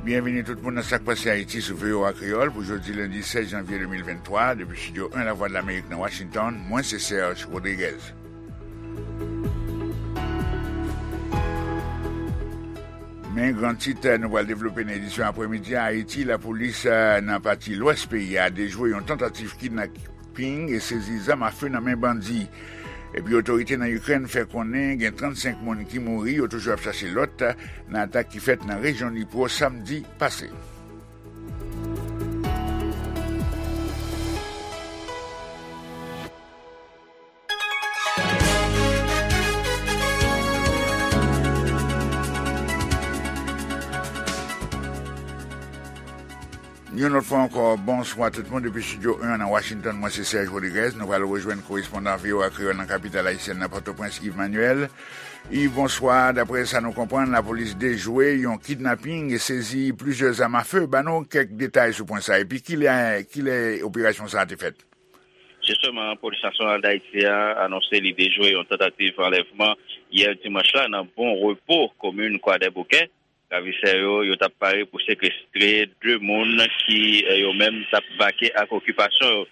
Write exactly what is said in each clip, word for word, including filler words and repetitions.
Byenvini tout moun nan Sa k Pase Ayiti sou V O A Kreyòl pou jodi lendi sèz janvye de mil venntwa, depi Estidyo en Lavwadlamerik nan Washington, mwen se Serge Rodriguez. Men gran tit nou pral devlope nan edisyon aprèmidi a: Ayiti, lapolis, eh, nan pati lwès peyi a dejwe yon tantativ kidnaping e sezi zam afe nan men bandi. Epi otorite nan Ikrèn fè konnen gen trannsenk moun ki mouri, yo toujou ap chache lòt, nan atak ki fèt nan rejyon Dnipro samdi pase. Yon lòt fwa ankò, bonswa tout moun depi Estidyo en nan Washington. Mwen se Serge Rodriguez. Nou pral rejwenn korespondan V O A Kreyòl nan kapital ayisyèn nan, Pòtoprens, Yves Manuel. Yves, bonswa. Daprè sa nou konprann, lapolis dejwe yon kidnaping e sezi plizyè zam afe. Ban nou kèk detay sou pwen sa a. Epi kilè, kilè operasyon sa a te fèt? Jisteman, Polis Nasyonal d Ayiti a anonse li dejwe yon tantativ anlèvman yè dimanch la nan Bon Repo, komin Kwadèboukè. Ravisè yo, yo t ap pare pou sekestre de moun ki, eh, yo menm, t ap vake ak okipasyon yo.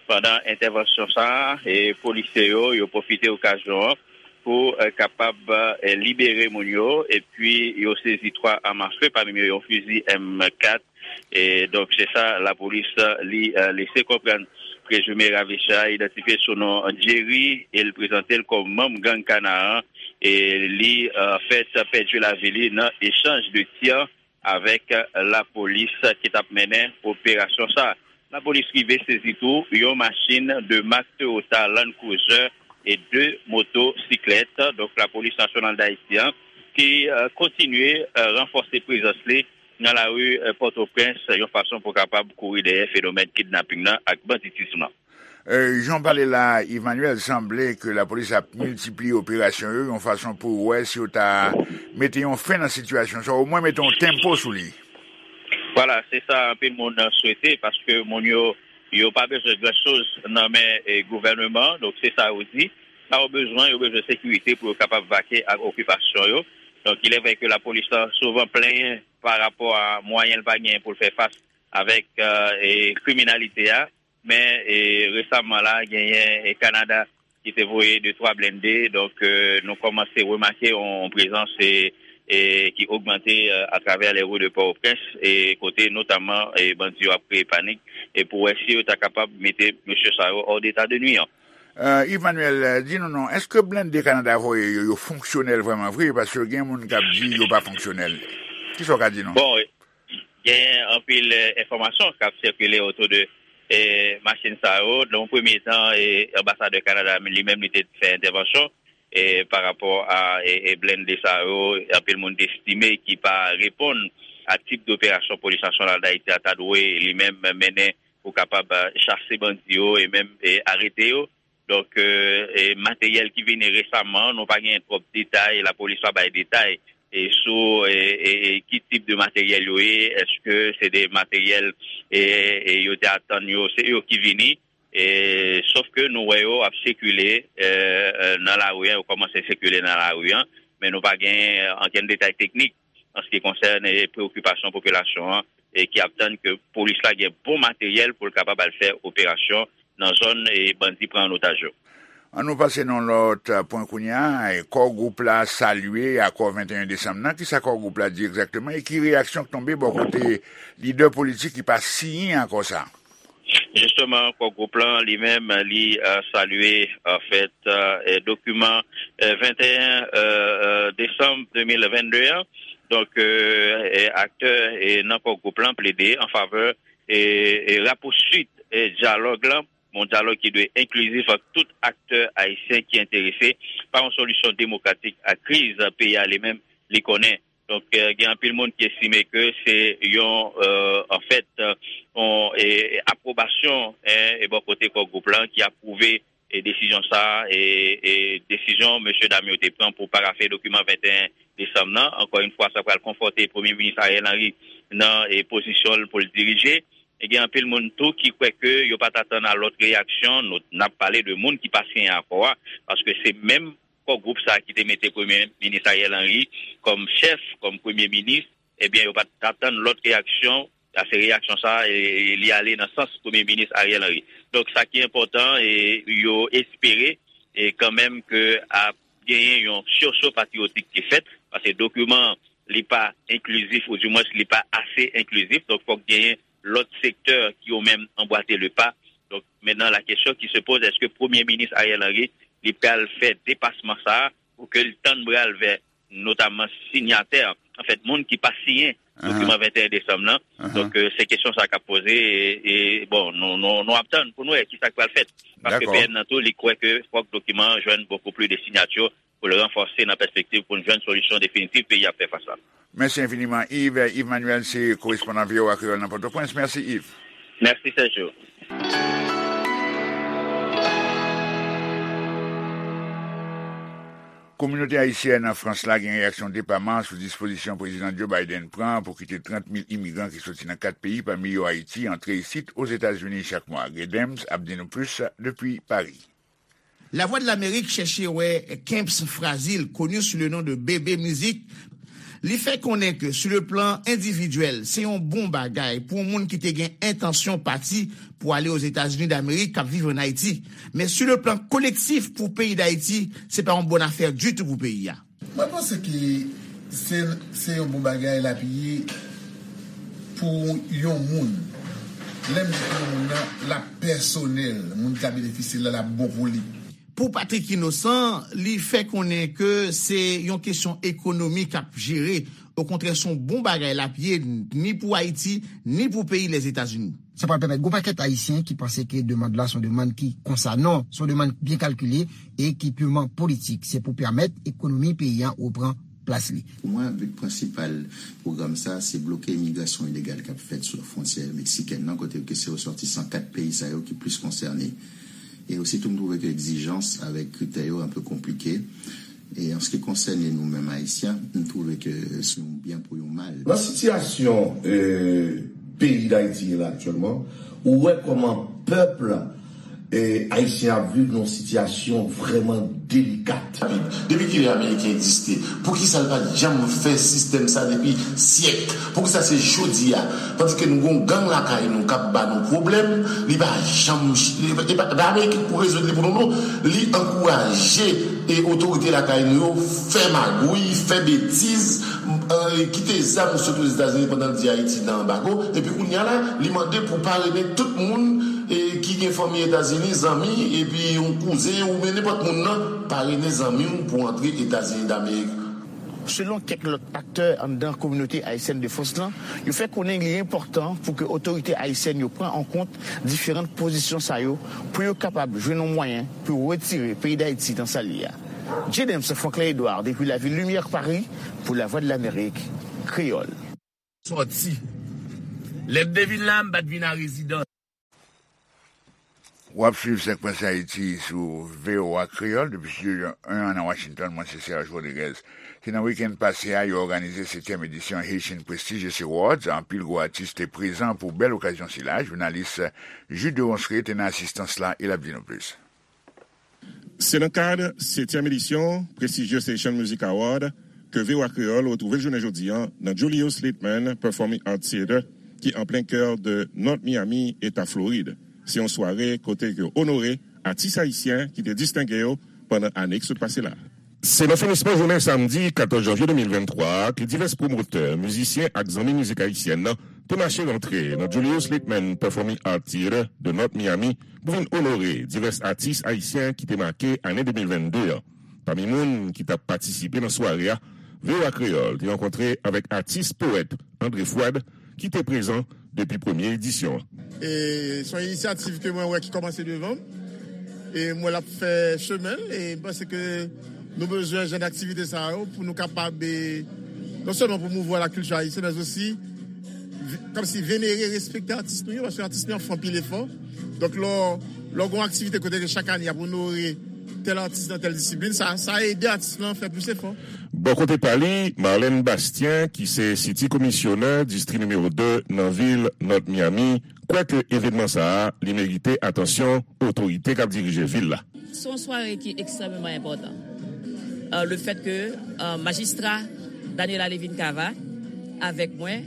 Pandan entèvansyon sa a, eh, polisye yo, yo pwofite okazyon an pou, eh, kapab, eh, libere moun yo, epi yo sezi twa zam afe, pami yo yon fizi M kat. E donk, se sa lapolis, eh, li, eh, lese konprann. Prezime ravisè a idantifye sou non Jerry e l prezante l kòm manm gang Kanaran. E li, eh, fèt pèdi lavi li nan echanj de tir avèk, eh, lapolis ki t ap mennen operasyon sa a. Lapolis rive sezi tou yon machin de mak Toyota Land Cruiser e de motosiklèt. Donk, Lapolis Nasyonal d Ayiti an ki, eh, kontinye, eh, ranfòse prezans li nan lari, eh, Pòtoprens, yon fason pou kapab kouri dèyè fenomèn kidnaping nan ak banditis lan. Eh, jan w pale la, Emmanuel, sanble ke lapolis ap miltipliye operasyon yo, yon fason pou wè si yo ta mete yon fen nan sitiyasyon sa, omwen mete yon tempo sou li. Vwala, se sa anpil moun swete, paske moun yo, yo pa bezwen gran choz nan men, eh, gouvènman an, donk se sa yo di. Sa yo bezwen, yo bezwen sekirite pou yo kapab vake ak okipasyon yo. Donk, il est vrai que lapolis lan souvan plenyen pa rapò a mwayen l pa genyen pou l fè fas avèk, eh, e kriminalite a. Men, e, resaman la, genyen, e, Kanada ki te voye de twa blende. Donk, e, nou kòmanse remake yon prezans, e, e, ki ogmante, e, atravè les rues de Port-au-Prince, e, kote notaman, e, bandi yo ap kreye panik, e pou wè si yo ta kapab mete mesye sa yo hors d'état de nuire. E, Yves Manuel, e, di nou non, èske blende Kanada voye yo, yo fonksyonèl vrèman vre? Paske gen moun k ap di yo pa fonksyonèl. Kisa w ka di nou? Bon, gen anpil, e, enfòmasyon k ap sikile otou de, e, machin sa yo. Nan yon premye tan, e, anbasadè Kanada li menm li te fè entèvansyon, e, pa rapò a, e, e, blende sa yo. Anpil moun te estime ki pa reponn a tip de operasyon Polis Nasyonal d Ayiti a ta dwe li menm mennen pou kapab, e, chase bandi yo e menm, e, arete yo. Donk, e, e, materyèl ki vini resaman, nou pa gen twòp detay, lapolis pa bay detay, e, sou, e, e, e, ki tip de materyèl yo ye, èske se de materyèl, e, e, yo te atann yo, se yo ki vini, e, sof ke nou wè yo ap sikile, e, e, nan lari a, yo kòmanse sikile nan lari a, men nou pa gen, e, ankenn detay teknik an se ki konsène preokipasyon popilasyon an, e ki ap tann ke polis la gen bon materyèl pou l kapab al fè operasyon nan zòn, e, bandi pran an otaj yo. An nou pase nan lòt, e, pwen kounye a, e, Core Group la salye akò venteyen desanm nan. Kisa Core Group la di egzakteman e ki reyaksyon k tonbe bò kote lidè politik ki pa siyen akò sa? Jisteman, Core Group lan li menm, li, e, salye, anfèt, e, dokiman, e, venteyen, e, e, desanm de mil vennde an. Donk, e, e, aktè, e, nan Core Group lan plede an favè, e, e, rapouswit, e, dyalòg lan, yon dyalòg ki dwe enklizif ak tout aktè ayisyen ki enterese pa yon solisyon demokratik a kriz peyi a li menm li konnen. Donk, e, gen anpil moun ki estime ke se yon, e, anfèt, e, yon, e, apwobasyon, e, e bò kote Core Group lan ki apwouve, e, desizyon sa a, e, e desizyon mesye dam yo te pran pou parafe dokiman venteyen desanm nan. Ankò yon fwa, sa pral konfòte Premye Minis Ariel Henry nan, e, pozisyon l pou l dirije. E gen anpil moun tou ki kwè ke yo pa t atann a lòt reyaksyon. Nou, n ap pale de moun ki pa siyen akò a, paske se menm Core Group sa a ki te mete Premye Minis Ariel Henry kòm chèf, kòm Premye Minis, ebyen, yo pa t atann lòt reyaksyon, paske reyaksyon sa a, e, e, li ale nan sans Premye Minis Ariel Henry. Donk, sa ki enpòtan, e, yo espere, e, kanmenm ke ap genyen yon sursaut patriotik ki fèt, paske dokiman an, li pa enklizif, oudimwens, li pa ase enklizif, donk fòk genyen lòt sektè ki yo menm anbwate le pa. Donk, mentnan, la question qui se pose, èske Premye Minis Ariel Henry, li pral fè depasman sa a pou ke l tann bra l vè notamman sinyatè, anfèt, moun ki pa siyen dokiman venteyen desanm nan. Donk, e, se kesyon sa k ap poze, e, e, bon, nou, nou, nou ap tann pou nou wè ki sa k pral fèt. Paske P N nan tou, li kwè ke fòk dokiman an jwenn beaucoup plus de sinyati pou l ranfòse nan pèspektiv pou n jwenn solisyon definitif peyi a ap fè fas la. Mèsi enfiniman, Yves. Yves Manuel se korespondan V O A Kreyòl nan Pòtoprens. Mèsi, Yves. Mèsi, Sergio. Kominote ayisyèn an Frans la gen reyaksyon depaman sou dispozisyon Prezidan Joe Biden pran pou kite trant mil imigran ki soti nan kat peyi, pami yo Ayiti, antre isit Ozetazini chak mwa. Gay Dems ap di nou plis depi Paris. Lavwadlamerik chèche wè Kemps Frazil, connu sous le nom de Bébé Musique. Li fè konnen ke, sou le plan endividyèl, se yon bon bagay pou yon moun ki te gen entansyon pati pou ale Ozetazini Damerik, k ap viv ann Ayiti. Men, sou le plan kolektif, pou peyi Dayiti, se pa yon bòn afè ditou pou peyi a. Mwen panse ke se, se yon bon bagay l ap ye pou yon moun. Lè m di pou yon moun nan, l ap pèsonèl. Moun ki ka benefisye l la, l ap bon pou li. Pou Patrick Innocent, li fè konnen ke se yon kesyon ekonomi k ap jere. Okontrè, se yon bon bagay l ap ye, ni pou Ayiti, ni pou peyi Lèzetazini. Sa pral pèmèt gwo pakèt Ayisyen ki panse ke demann la se yon demann ki konsa. Non, se yon demann byen kalkile e ki piman politik. Se pou pèmèt ekonomi peyi a reprann plas li. Pou mwen, bi prensipal pwogram sa, se bloke imigrasyon ilegal k ap fèt sou fwontyè meksikèn nan, kote ke se resòtisan kat peyi sa yo ki plis konsène. E ositou, m twouve ke egzijans avèk kritè yo enpe konplike. E an se ki konsène nou menm Ayisyen, m twouve ke se yon byen pou yon mal. Nan sitiyasyon, e, peyi Dayiti ye la aktyèlman, ou wè kòman pèp, e, ayisyen ap viv nan yon sitiyasyon vrèman delikat. Depi kilè Ameriken egziste? Poukisa l pa t janm fè sistèm sa depi syèk? Poukisa se jodi a? Tandis ke nou gon gang lakay nou k ap ba nou pwoblèm, li pa janm, li pa, li pa, pa Ameriken pou rezoud li pou nou, non. Li ankouraje e otorite lakay nou yo fè magouy, fè betiz, e, kite zam sot Ozetazini pandan l di Ayiti nan anbago, epi kounye a la, li mande pou parene tout moun, e, ki gen fanmi Etazini, zanmi, epi yon kouzen, oubyen nenpòt moun nan, parene zanmi w pou antre Etazini Damerik. Selon kèk lòt aktè anndan kominote ayisyèn de Frans lan, yo fè konnen li enpòtan pou ke otorite ayisyèn yo pran an kont diferan pozisyon sa yo pou yo kapab jwenn yon mwayen pou yo retire peyi Dayiti nan sa l ye a. J. Dems, Franklin Edouard, depi lavil Limyè, Paris, pou Lavwadlamerik Kreyòl. Sòti. Lè m te vin la, m pa t vin a rezidans. W ap swiv Sèk Prens Ayiti sou V O A Kreyòl depi Studio en an nan Washington. Mwen se Serge Rodriguez. Se nan wikenn pase a, yo òganize setyèm edisyon Haitian Prestigious Awards. Anpil gwo atis te prezan pou bèl okazyon sila. Jounalis Jude Deronceray te nan asistans la e l ap di nou plis. Se nan kad setyèm edisyon Prestigious Haitian Music Award ke V O A Kreyòl retwouve l jounen jodi a nan Julius Litman Performing Arts Theater ki an plen kè de North Miami, Eta Florid. Se yon sware kote ke yo onore atis ayisyen ki te distenge yo pandan ane ki sot pase la. Se nan finisman jounen samdi katòz janvye de mil venntwa a ke divès pwomotè, mizisyen ak zanmi mizik ayisyèn nan te mache rantre nan Julius Litman Performing Arts Theater de North Miami pou vin onore divès atis ayisyen ki te make ane de mil vennde an. Pami moun ki t ap patisipe nan sware a, V O A Kreyòl te rankontre avèk atis powèt André Fouad, ki te prezan depi premye edisyon an. E se yon inisyativ ke mwen wè ki kòmanse devan m. E m wè l ap fè chemen l. E m panse ke nou bezwen jan aktivite sa yo pou nou kapab, e, non sèlman pwomouvwa lakilti ayisyen, men osi vi-, kòmsi venere, respekte atis nou yo, paske atis nou yo ap fè anpil efò. Donk, lè w, lè w gen yon aktivite kote ke chak ane y ap onore tèl atis nan tèl disiplin, sa, sa ede atis lan fè plis efò. Bò kote pa li, Marlène Bastien, ki se City Commissioner distri nimewo de nan vil North Miami, kwè ke evènman sa a, li merite atansyon otorite k ap dirije vil la. Se yon sware ki ekstrèmeman enpòtan. Euh, le fait que, euh, majistra Daniela Levine Cava Avèk mwen,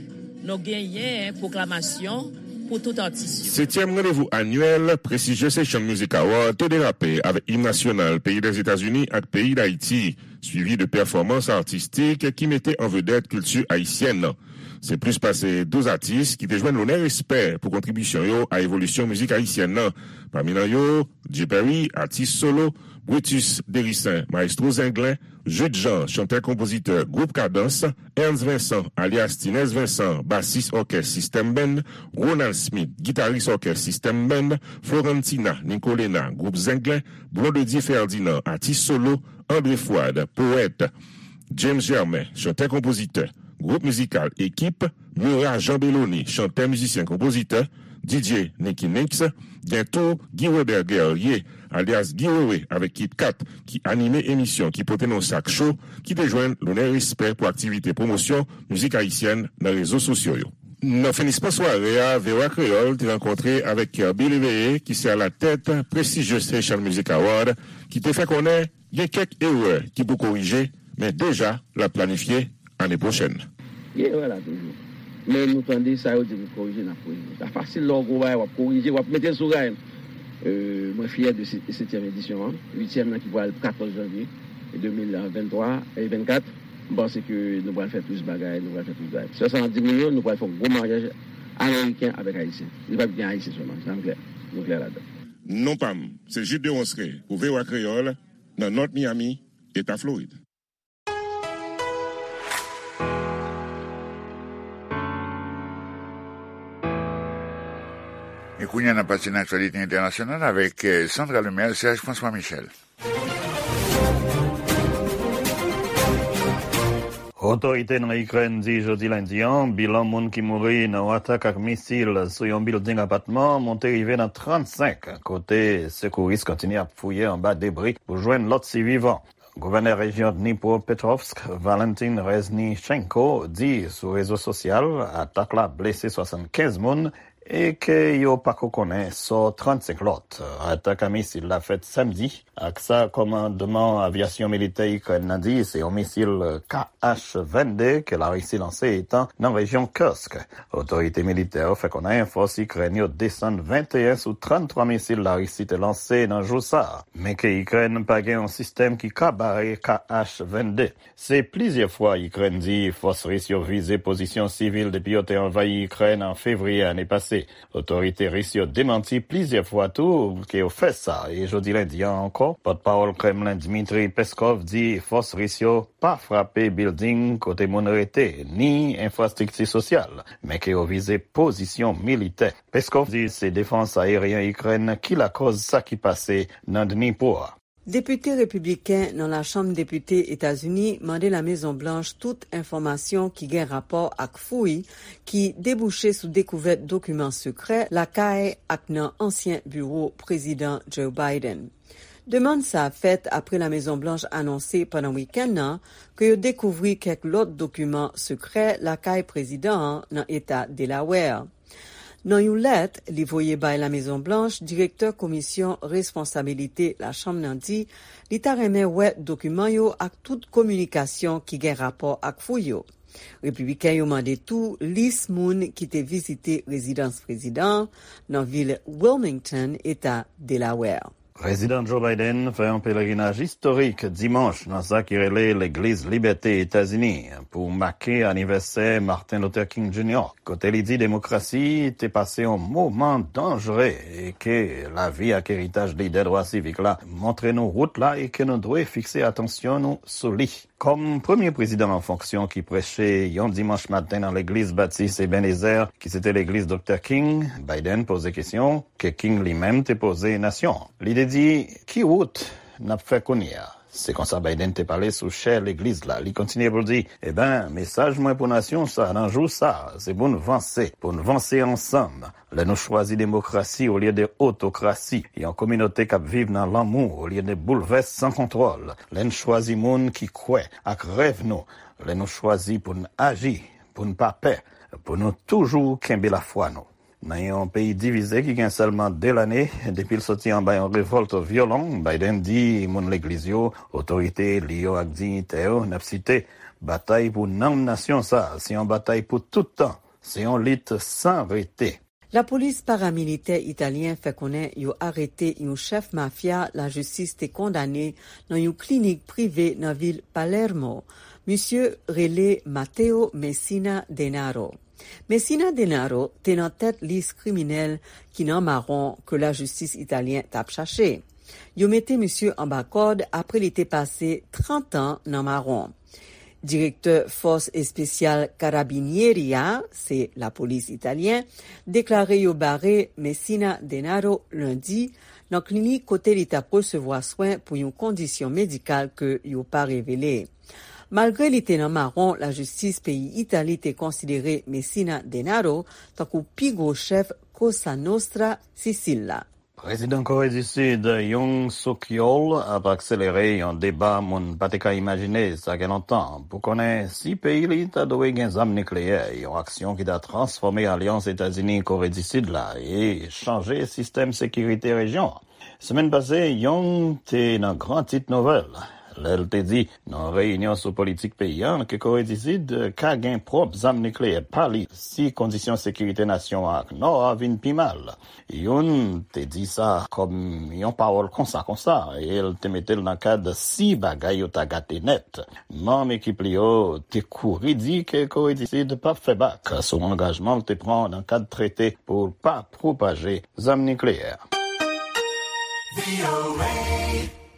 nou genyen pwoklamasyon pou tout atis yo. Setyèm randevou anyèl Prestigious Haitian Music Award te derape avèk im nasyonal peyi Dèzetazini ak peyi Dayiti, swivi de pèfòmans atistik ki mete an vedèt kilti ayisyèn nan. Se plis pase douz atis ki te jwenn lonè respè pou kontribisyon yo a evolisyon mizik ayisyèn nan. Pami nan yo, Dye Perry, atis solo, Brutus Dericen, mayestwo zenglen, Jude Jean, chantè-konpozitè gwoup Kadans, Ernst Vincent, alyas Tinès Vincent, basis òkès System Band, Ronald Smith, gitaris òkès System Band, Florentina Nicolena, gwoup Zenglen, Blondedy Ferdinand, atis solo, André Fouad, powèt, James Germain, chantè-konpozitè, gwoup mizikal Ekip, Murat Jean Belloni, chantè-mizisyen-konpozitè, D J Nicky Nicks, gen tou Guy Weber Guerrier, alyas Guy Wewe avèk Kit Kat, ki anime emisyon ki pote non sak cho, ki te jwenn lonè respè pou aktivite pwomosyon mizik ayisyèn nan rezo sosyo yo. Nan finisman sware a, V O A Kreyòl te rankontre avèk Kirby Léveillé, ki se alatèt Prestigious Haitian Music Award, ki te fè konnen gen kèk erè ki pou korije, men deja l ap planifye ane pwochèn. Gen erè la toujou. Men nou tande sa yo di pou korije, n ap korije. Sa fasil lè w gwo bagay, w ap korije, w ap mete l sou ray. Mwen fyè de setyèm edisyon an, uityèm nan ki pral katòz janvye de mil venntwa e vennkat. M panse ke nou pral fè plis bagay, nou pral fè plis bagay. Sèl sa n ap di moun yo, nou pral fè yon gwo maryaj ameriken avèk ayisyen. Li p ap gen ayisyen sèlman, sa n klè. Nou klè ladan. Non pa m, se Jude Deronceray pou V O A Kreyòl, nan North Miami, Eta Florid. E kounye a, n ap pase nan aktyalite entènasyonal avèk Sandra Lemaire, Serge François Michel. Otorite nan Ikrèn di jodi lendi an bilan moun ki mouri nan yon atak ak misil sou yon bilding apatman monte rive nan trannsenk, kote sekouris kontinye ap fouye anba debri pou jwenn lòt sivivan. Gouvènè rejyon Dnipropetrovsk, Valentin Reznichenko, di sou rezo sosyal atak la blese swasannkenz moun e ke yo pako konnen sò trannsenk lòt. Atak a misil la fèt samdi ak sa kòmandman avyasyon militè Ikrèn nan di se yon misil K H vennde ke Larisi lanse etan nan rejyon Kursk. Otorite militè yo fè konnen fòs Ikrèn yo desann venteyen sou tranntwa misil Larisi te lanse nan jou sa a, men ke Ikrèn pa gen yon sistèm ki ka bare K H vennde. Se plizyè fwa Ikrèn di fòs ris yo vize pozisyon sivil depi yo te anvayi Ikrèn an fevriye ane pase. Otorite ris yo demanti plizyè fwa tou ke yo fè sa, e jodi lendi an ankò, pòtpawòl Kremlen Dmitry Peskov di fòs ris yo pa frape bilding kote moun rete, ni enfrastrikti sosyal, men ke yo vize pozisyon militè. Peskov di se defans ayeryen Ikrèn ki lakòz sa ki pase nan Dnipro a. Depite repibliken nan Lachanm Depite Etazini mande Lamezon Blanch tout enfòmasyon ki gen rapò ak fouy ki debouche sou dekouvèt dokiman sekrè lakay ak nan ansyen biwo Prezidan Joe Biden. Demann sa a fèt apre Lamezon Blanch anonse pandan wikenn nan ke yo dekouvri kèk lòt dokiman sekrè lakay prezidan an nan eta Delaware. Nan yon lèt li voye bay Lamezon Blanch, direktè Komisyon Responsabilite Lachanm nan di li ta renmen wè dokiman yo ak tout kominikasyon ki gen rapò ak fouy yo. Repibliken yo mande tou lis moun ki te vizite rezidans prezidan an nan vil Wilmington, eta Delaware. Prezidan Joe Biden fè yon pelerinaj istorik dimanch nan sa ki rele Legliz Libète Etazini pou make anivèsè Martin Luther King Junior, kote li di demokrasi te pase yon moman danjere e ke lavi ak eritaj lidè dwa sivik la montre nou wout la e ke nou dwe fikse atansyon nou sou li. Kòm premye prezidan an fonksyon ki preche yon dimanch maten nan legliz Batis Ebenezer, ki se te legliz Doktè King, Biden poze kesyon, ke King li menm te poze nasyon an. Li te di, ki wout n ap fè kounye a? Se konsa Biden te pale sou chè legliz la. Li kontinye pou l di, eben, mesaj mwen pou nasyon sa a nan jou sa a, se pou n vanse, pou n vanse ansanm. Lè nou chwazi demokrasi olye de otokrasi, yon kominote k ap viv nan lanmou olye de boulvès san kontwòl, lè n chwazi moun ki kwè ak rèv nou, lè nou chwazi pou n aji, pou n pa pè, pou nou toujou kenbe lafwa nou. Nan yon peyi divize ki gen sèlman de lane depi l soti anba yon revòlt vyolon, Biden di moun legliz yo, otorite eli yo ak diyitè yo, n ap site, batay pou nanm nasyon sa a, se yon batay pou tout tan, se yon lit san rete. Lapolis paramilitè italyen fè konnen yo arete yon chèf mafya lajistis te kondane nan yon klinik prive nan vil Palermo. Misye rele Matteo Messina Denaro. Messina Denaro te nan tèt lis kriminèl ki nan mawon ke lajistis italyen t ap chache. Yo mete misye anba kòd apre li te pase trant an nan mawon. Direktè Fòs Espesyal Carabinieri a, se lapolis italyen, deklare yo bare Messina Denaro lendi nan klinik kote li t ap resevwa swen pou yon kondisyon medikal ke yo pa revele. Malgre li te nan mawon, lajistis peyi Itali te konsidere Messina Denaro tankou pi gwo chèf Cosa Nostra Sisil la. Prezidan Kore di Sid, Yoon Suk Yeol, ap akselere yon deba moun pa te ka imajine sa gen lontan pou konnen si peyi li ta dwe gen zam nikleyè, yon aksyon ki ta transfòme alyans Etazini-Kore di Sid la e chanje sistèm sekirite rejyon an. Semèn pase, Yoon te nan gran tit nouvèl lè l te di nan yon reyinyon sou politik peyi a ke Kore di Sid ka gen pwòp zam nikleyè pa li si kondisyon sekirite nasyon an ak Nò a vin pi mal. Yoon te di sa kòm yon pawòl konsa konsa e l te mete l nan kad si bagay yo ta gate nèt. Manm ekip li yo te kouri di ke Kore di Sid p ap fè bak sou angajman l te pran nan kad trete pou l pa pwopaje zam nikleyè.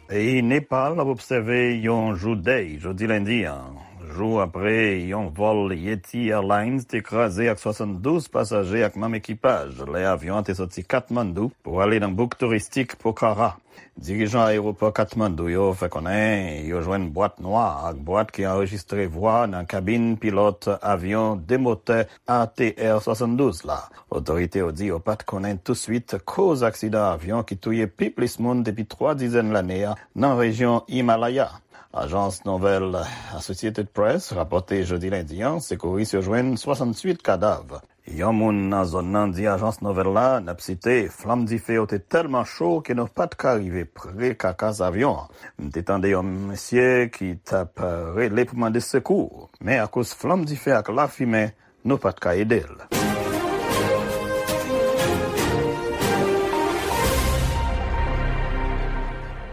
Peyi Nepal ap obsève yon jou dèy jodi lendi an, jou apre yon vòl Yeti Airlines te kraze ak swasanndouz pasaje ak manm ekipaj lè avyon an te soti Katmandou pou ale nan bouk touristik Pokhara. Dirijan ayewopò Katmandou yo fè konnen yo jwenn bwat nwa ak bwat ki anrejistre vwa nan kabin pilòt avyon de motè A T R swasanndouz la. Otorite yo di yo pa t konnen touswit koz aksidan avyon ki touye pi plis moun depi twa dizèn lane a nan rejyon Himalaya. Ajans nouvèl Associated Press rapòte jodi lendi an, sekouris yo jwenn swasanntuit kadav. Yon moun nan zòn nan di ajans nouvèl la, n ap site, flanm dife yo te tèlman cho ke nou pa t ka rive pre kakas avyon an. M te tande yon mesye ki t ap rele pou mande sekou, men akoz flanm dife ak lafimen, nou pa t ka ede l.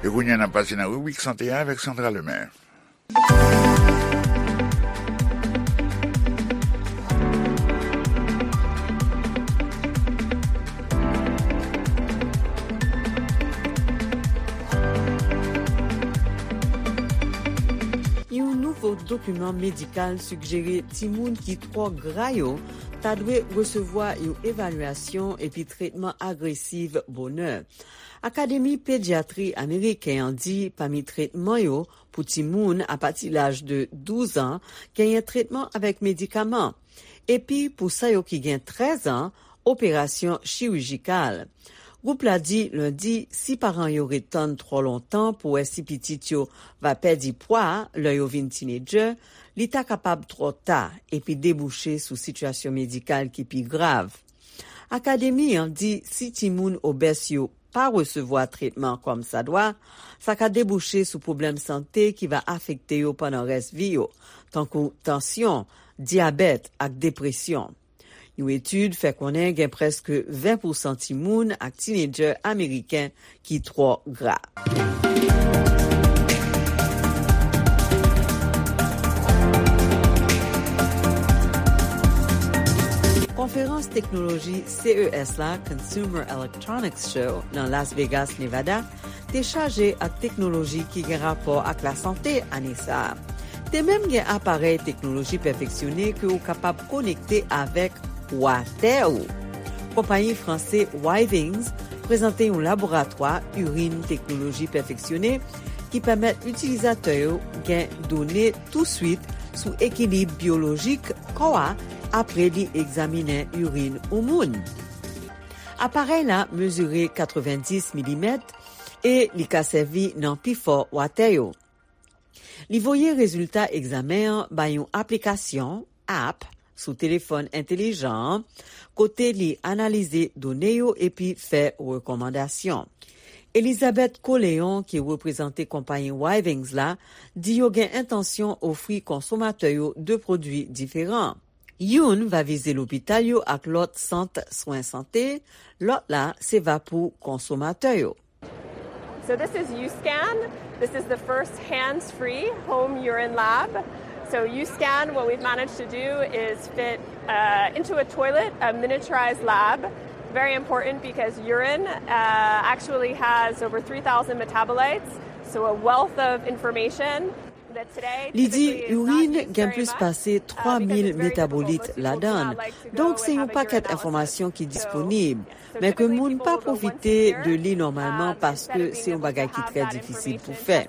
E kounye a, n ap pase nan ribrik sante a avèk Sandra Lemaire. Yon nouvo dokiman medikal sigjere timoun ki twò gra yo ta dwe resevwa yon evalyasyon epi tretman agresiv bonè. Akademi Pedyatri Ameriken an di pami tretman yo pou timoun apati laj de douz an genyen tretman avèk medikaman, epi pou sa yo ki gen trèz an, operasyon chirijikal. Gwoup la di lendi si paran yo ret tann twò lontan pou wè si pitit yo va pèdi pwa lè yo vin tinedjè, li ta kapab twò ta epi debouche sou sitiyasyon medikal ki pi grav. Akademi an di si timoun obès yo pa resevwa tretman kòmsadwa, sa ka debouche sou pwoblèm sante ki va afekte yo pandan rès vi yo, tankou tansyon, dyabèt ak depresyon. Yon etid fè konnen gen prèske ven pousan timoun ak tinedjè ameriken ki twò gra. Konferans teknoloji C E S la, Consumer Electronics Show, nan Las Vegas, Nevada, te chaje ak teknoloji ki gen rapò ak lasante ane sa a. Te menm gen aparèy teknoloji pèfeksyone ke w kapab konekte avèk watè w. Konpayi franse Withings prezante yon laboratwa irin teknoloji pèfeksyone ki pèmèt itilizatè yo gen done touswit sou ekilib byolojik kò a apre li egzaminen irin yon moun. Aparèy la mezire katrevenndis milimèt e li ka sèvi nan pifò watè yo. Li voye rezilta egzamen an bay yon aplikasyon, app, sou telefòn entelijan an, kote li analize done yo epi fè rekòmandasyon. Elizabeth Coléon, ki reprezante konpayi Withings la, di yo gen entansyon ofri konsomatè yo de pwodui diferan. Youn va vize lopital yo ak lòt sant swen sante, lòt la se va pou konsomatè yo. So this is U-Scan. This is the first hands-free home urine lab. So U-Scan, what we've managed to do is fit uh, into a toilet a miniaturized lab. Very important because urine uh, actually has over three thousand metabolites, so a wealth of information. Li di irin gen plis pase twa mil metabolit ladan l, donk se yon pakèt enfòmasyon ki disponib, men ke moun pa pwofite de li nòmalman paske se yon bagay ki trè difisil pou fè.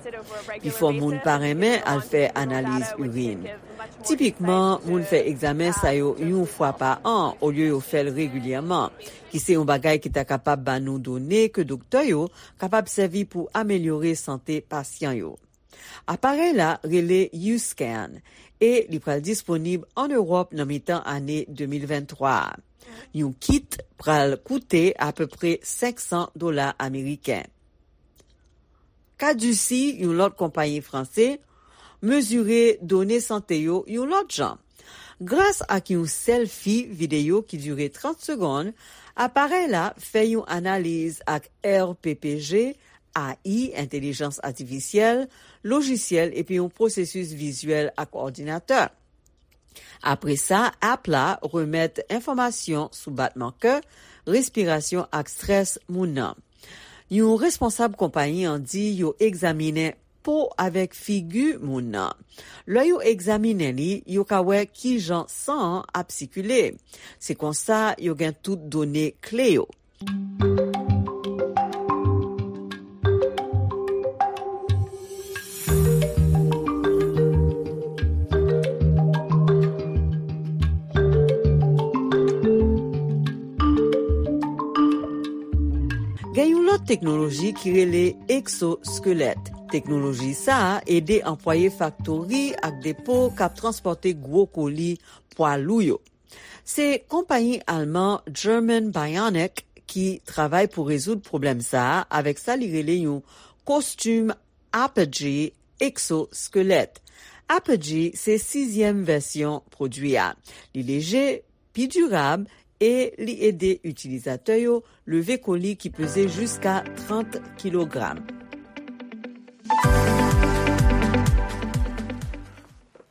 Pifò moun pa renmen al fè analiz irin. Tipikman, moun fè egzamen sa yo yon fwa pa an olye yo fè l regilyèman, ki se yon bagay ki ta kapab ba nou done ke doktè yo kapab sèvi pou amelyore sante pasyan yo. Aparèy la rele U-Scan e li pral disponib ann Ewòp nan mitan ane de mil venntwa a. Yon kit pral koute apepre senk san dola ameriken. Caduci, yon lòt konpayi franse, mezire done sante yo yon lòt jan. Gras ak yon sèlfi videyo ki dire trant segonn, aparèy la fè yon analiz ak R P P G, A I, entèlijans atifisyèl, lojisyèl epi yon pwosesis vizyèl ak òdinatè. Apre sa, app la remèt enfòmasyon sou batman kè, respirasyon ak strès moun nan. Yon responsab konpayi an di yo egzaminen po avèk figi moun nan. Lè yo egzaminen li, yo ka wè kijan san an ap sikile. Se konsa yo gen tout done kle yo. Gen yon lòt teknoloji ki rele eksoskelèt. Teknoloji sa a ede anplwaye faktori ak depo k ap transpòte gwo koli pwa lou yo. Se konpayi alman German Bionic ki travay pou rezoud pwoblèm sa a avèk sa li rele yon kostim Apogee eksoskelèt. Apogee se sizyèm vèsyon pwodui a. Li leje, pi dirab e li ede itilizatè yo leve koli ki peze jiska trant kilogram.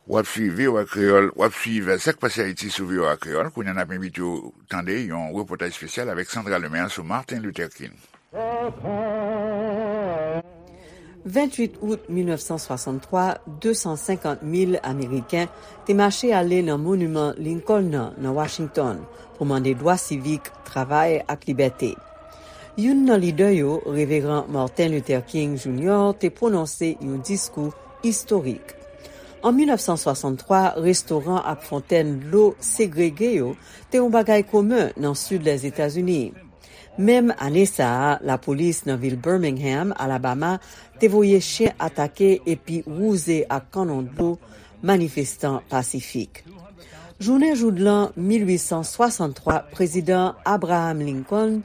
W ap swiv V O A Kreyòl, w ap swiv Sa k pase Ayiti sou V O A Kreyòl. Kounye a n ap envite w tande yon repòtaj espesyal avèk Sandra Lemaire sou Martin Luther King. Venntuit out mil nèf san swasanntwa, de san senkant mil Ameriken te mache ale nan Moniman Lincoln nan, nan Washington, pou mande dwa sivik, travay ak libète. Youn nan lidè yo, Reveran Martin Luther King Junior, te pwononse yon diskou istorik. An mil nèf san swasanntwa, restoran ak fontèn dlo segrege yo te yon bagay komen nan sid Lèzetazini. Menm ane sa a, lapolis nan vil Birmingham, Alabama, te voye chen atake epi wouze ak kannon dlo manifestan pasifik. Jounen joudlan mil uit san swasanntwa, Prezidan Abraham Lincoln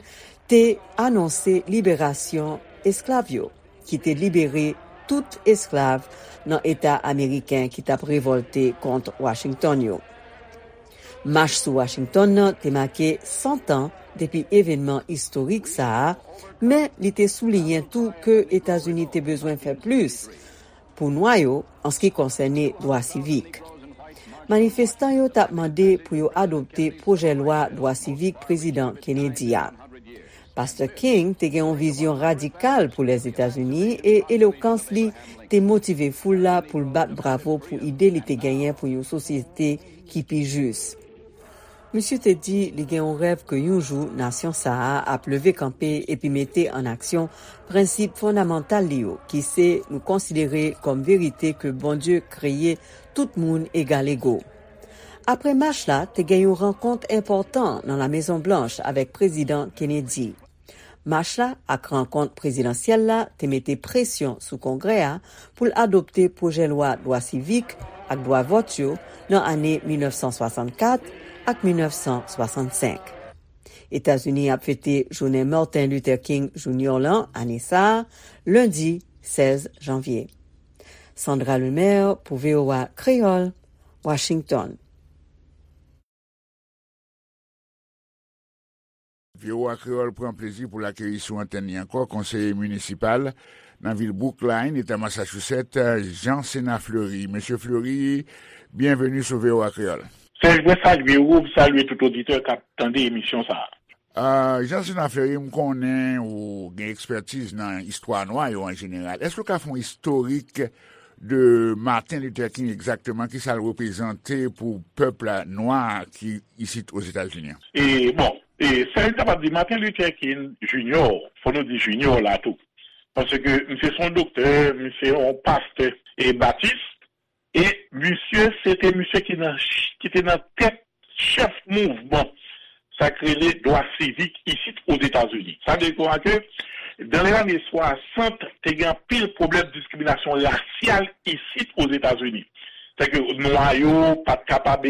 te anonse liberasyon esklav yo, ki te libere tout esklav nan eta ameriken ki t ap revòlte kont Washington yo. Mach sou Washington nan te make san tan depi evènman istorik sa a, men li te souliyen tou ke Etazini te bezwen fè plis pou nwa yo an se ki konsène dwa sivik. Manifestan yo t ap mande pou yo adopte pwojè lwa dwa sivik Prezidan Kennedy a. Pastè King te gen yon vizyon radikal pou Lèzetazini e elokans li te motive foul la pou l bat bravo pou ide li te genyen pou yon sosyete ki pi jis. Misye te di li gen yon rèv ke yon jou nasyon sa a ap leve kanpe epi mete an aksyon prensip fondamantal li yo, ki se nou konsidere kòm verite ke Bondye kreye tout moun egalego. Apre mach la, te gen yon rankont enpòtan nan La Mezon Blanch avèk Prezidan Kennedy. Mach la ak rankont prezidansyèl la te mete presyon sou Kongrè a pou l adopte pwojè lwa dwa sivik ak dwa vòt yo nan ane mil nèf san swasannkat ak mil nèf san swasannsenk. Etazini ap fete jounen Martin Luther King Junior lan ane sa a, lendi sèz janvye. Sandra Lemaire pou V O A Kreyòl, Washington. V O A Kreyòl pran plezi pou l akeyi sou antèn li ankò konseye minisipal nan vil Brookline, eta Massachusetts, Jean Sénat Fleury. Mesye Fleury, byenveni sou V O A Kreyòl. Serge, mwen salye ou, m salye tout oditè k ap tande emisyon sa a. Ah, Jean Sénat Fleury, m konnen ou gen ekspètiz nan istwa nwa yo an jeneral. Èske w ka fè yon istorik de Martin Luther King egzakteman, kisa l reprezante pou pèp nwa ki isit Ozetazini an? E bon, e sa yo kapab di, Martin Luther King Junior, fò nou di Junior la tou. Paske misye se yon doktè, misye yon pastè e batis, e misye se te misye ki nan ki te nan tèt chèf mouvman sa k rele dwa sivik isit Ozetazini. Sa vle di ke dans les années soixante, te gen anpil pwoblèm diskriminasyon rasyal isit Ozetazini. Sèke nwa yo pa t kapab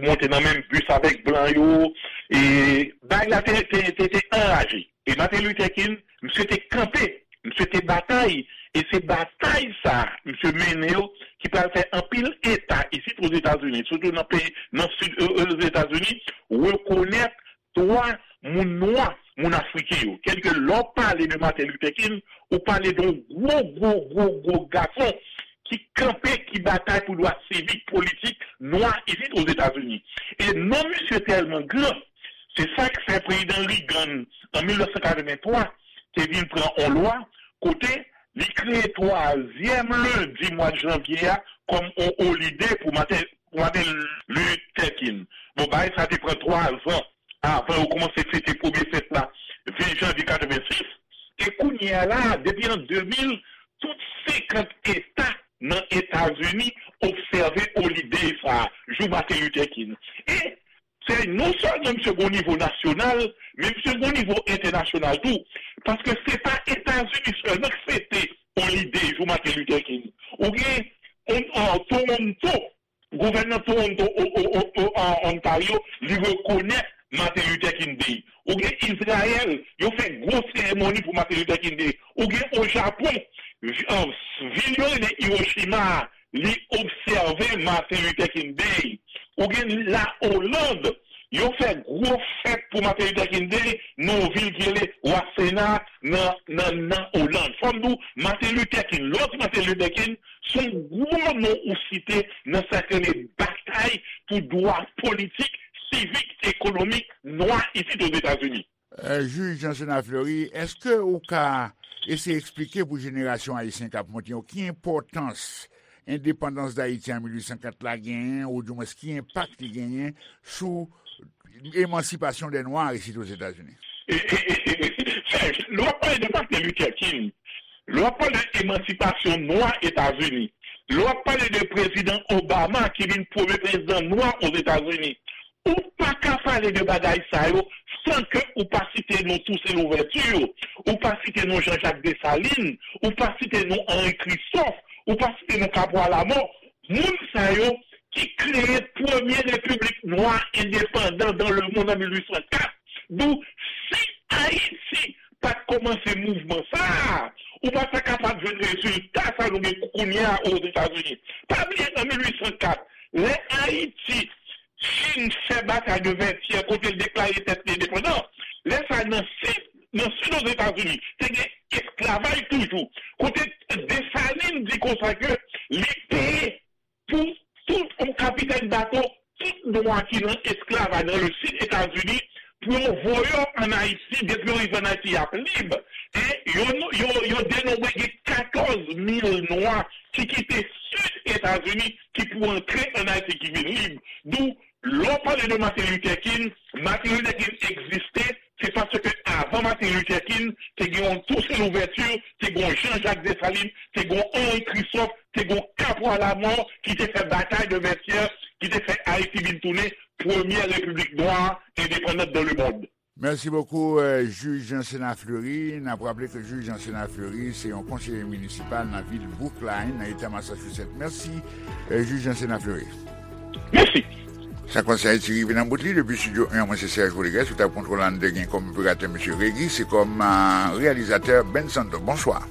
monte nan menm bis avèk blan yo, e bagay la te, te, te, te anraje. E Martin Luther King, misye te kanpe, misye te batay, e se batay sa a misye mennen yo ki pral fè anpil eta isit Ozetazini, sitou nan peyi, nan sid Ozetazini, rekonèt dwa moun nwa, moun afriken yo. Kèlke lè w pale de Martin Luther King, ou pale de yon gwo, gwo, gwo, gwo gason ki kanpe, ki batay pou dwa sivik, politik nwa isit Ozetazini. E non misye tèlman gran, se sa k fè prezidan Reagan, an mil nèf san katrevenntwa, te vin pran yon lwa kote li kreye twazyèm lendi mwa janvye a kòm yon olide pou Martin, pou Martin Luther King. Bon, bagay sa te pran twa zan avan yo kòmanse fete premye fèt la, ven janvye katrevensis. E kounye a la, depi an de mil, tout senkant eta nan Etazini obsève olide sa a, jou Martin Luther King. E se non sèlman misye gen yon nivo nasyonal, men misye gen yon nivo entènasyonal tou. Paske se pa Etazini sèlman k fete olide jou Martin Luther King. Ou gen on, on, Toronto, gouvènè Toronto, o, o, o, o, an Ontario, li rekonèt Martin Luther King Day. Ou gen Izrayèl, yo fè gwo seremoni pou Martin Luther King Day. Ou gen o Japon, vi- an, vil yo rele Hiroshima a, li obsève Martin Luther King Day. Ou gen la Oland, yo fè gwo fèt pou Martin Luther King Day nan yon vil ki rele Wasena nan, nan, nan Oland. Fò m di w, Martin Luther King, lòt Martin Luther King, se yon gwo non ou site nan sa k rele batay pou dwa politik, sivik, ekonomik nwa isit Ozetazini. Jij Jean Sénat Fleury, èske ou ka eseye eksplike pou jenerasyon ayisyen k ap monte yo ki enpòtans endepandans Dayiti an mil uit san kat la genyen, oudimwens ki enpak li genyen sou emansipasyon dè nwa isit Ozetazini? Serge, lè w ap pale de Martin Luther King, lè w ap pale de emansipasyon nwa Etazini, lè w ap pale de prezidan Obama ki vin premye prezidan nwa Ozetazini, ou pa ka pale de bagay sa yo san ke ou pa site non Toussaint Louverture, ou pa site non Jean-Jacques Dessalines, ou pa site non Henri Christophe, ou pa site non Capois Lamont, moun sa yo ki kreye premye repiblik nwa endepandan dans le monde an mil uit san kat. Donk, si Ayiti pa t kòmanse mouvman sa a, ou pa ta kapab jwenn rezilta sa nou gen kounye a Ozetazini. Pa bliye an mil uit san kat, lè Ayiti fin fè batay de Vètyè kote l deklare tèt li endepandan, lè sa a nan sid, nan sid Ozetazini, te gen esklavaj toujou. Kote Desalin di konsa ke li peye pou tout yon kapitèn bato, tout nwa ki nan esklavaj nan le sid Etazini, pou yo voye yo ann Ayiti, depi yo rive ann Ayiti, y ap lib. E yo, yo, yo denonbre gen katòz mil nwa ki kite sid Etazini, ki pou antre ann Ayiti, ki vin lib. Donk, lè w pale de Martin Luther King, Martin Luther King egziste, se paske avan Martin Luther King, te gen yon Toussaint Louverture, te gen yon Jean-Jacques Dessalines, te gen yon Henri Christophe, te gen yon Capois Lamont ki te fè batay de Vètyè, ki te fè Ayiti vin tounen premyè repiblik nwa endepandan dans le monde. Mèsi bokou, euh, jij Jansen Fleury. N ap raple ke jij Jansen Fleury se yon konseye minisipal nan vil Brookline, nan eta Massachusetts. Mèsi, euh, jij Jansen Fleury. Mèsi. Sa konsèy ti rive nan bout li depi studio un, mwen se Serge Rodriguez, sou tab kontwòl an de gen kòm operatè mesye Regi, se kòm, euh, reyalizatè Ben Santo. Bonswa.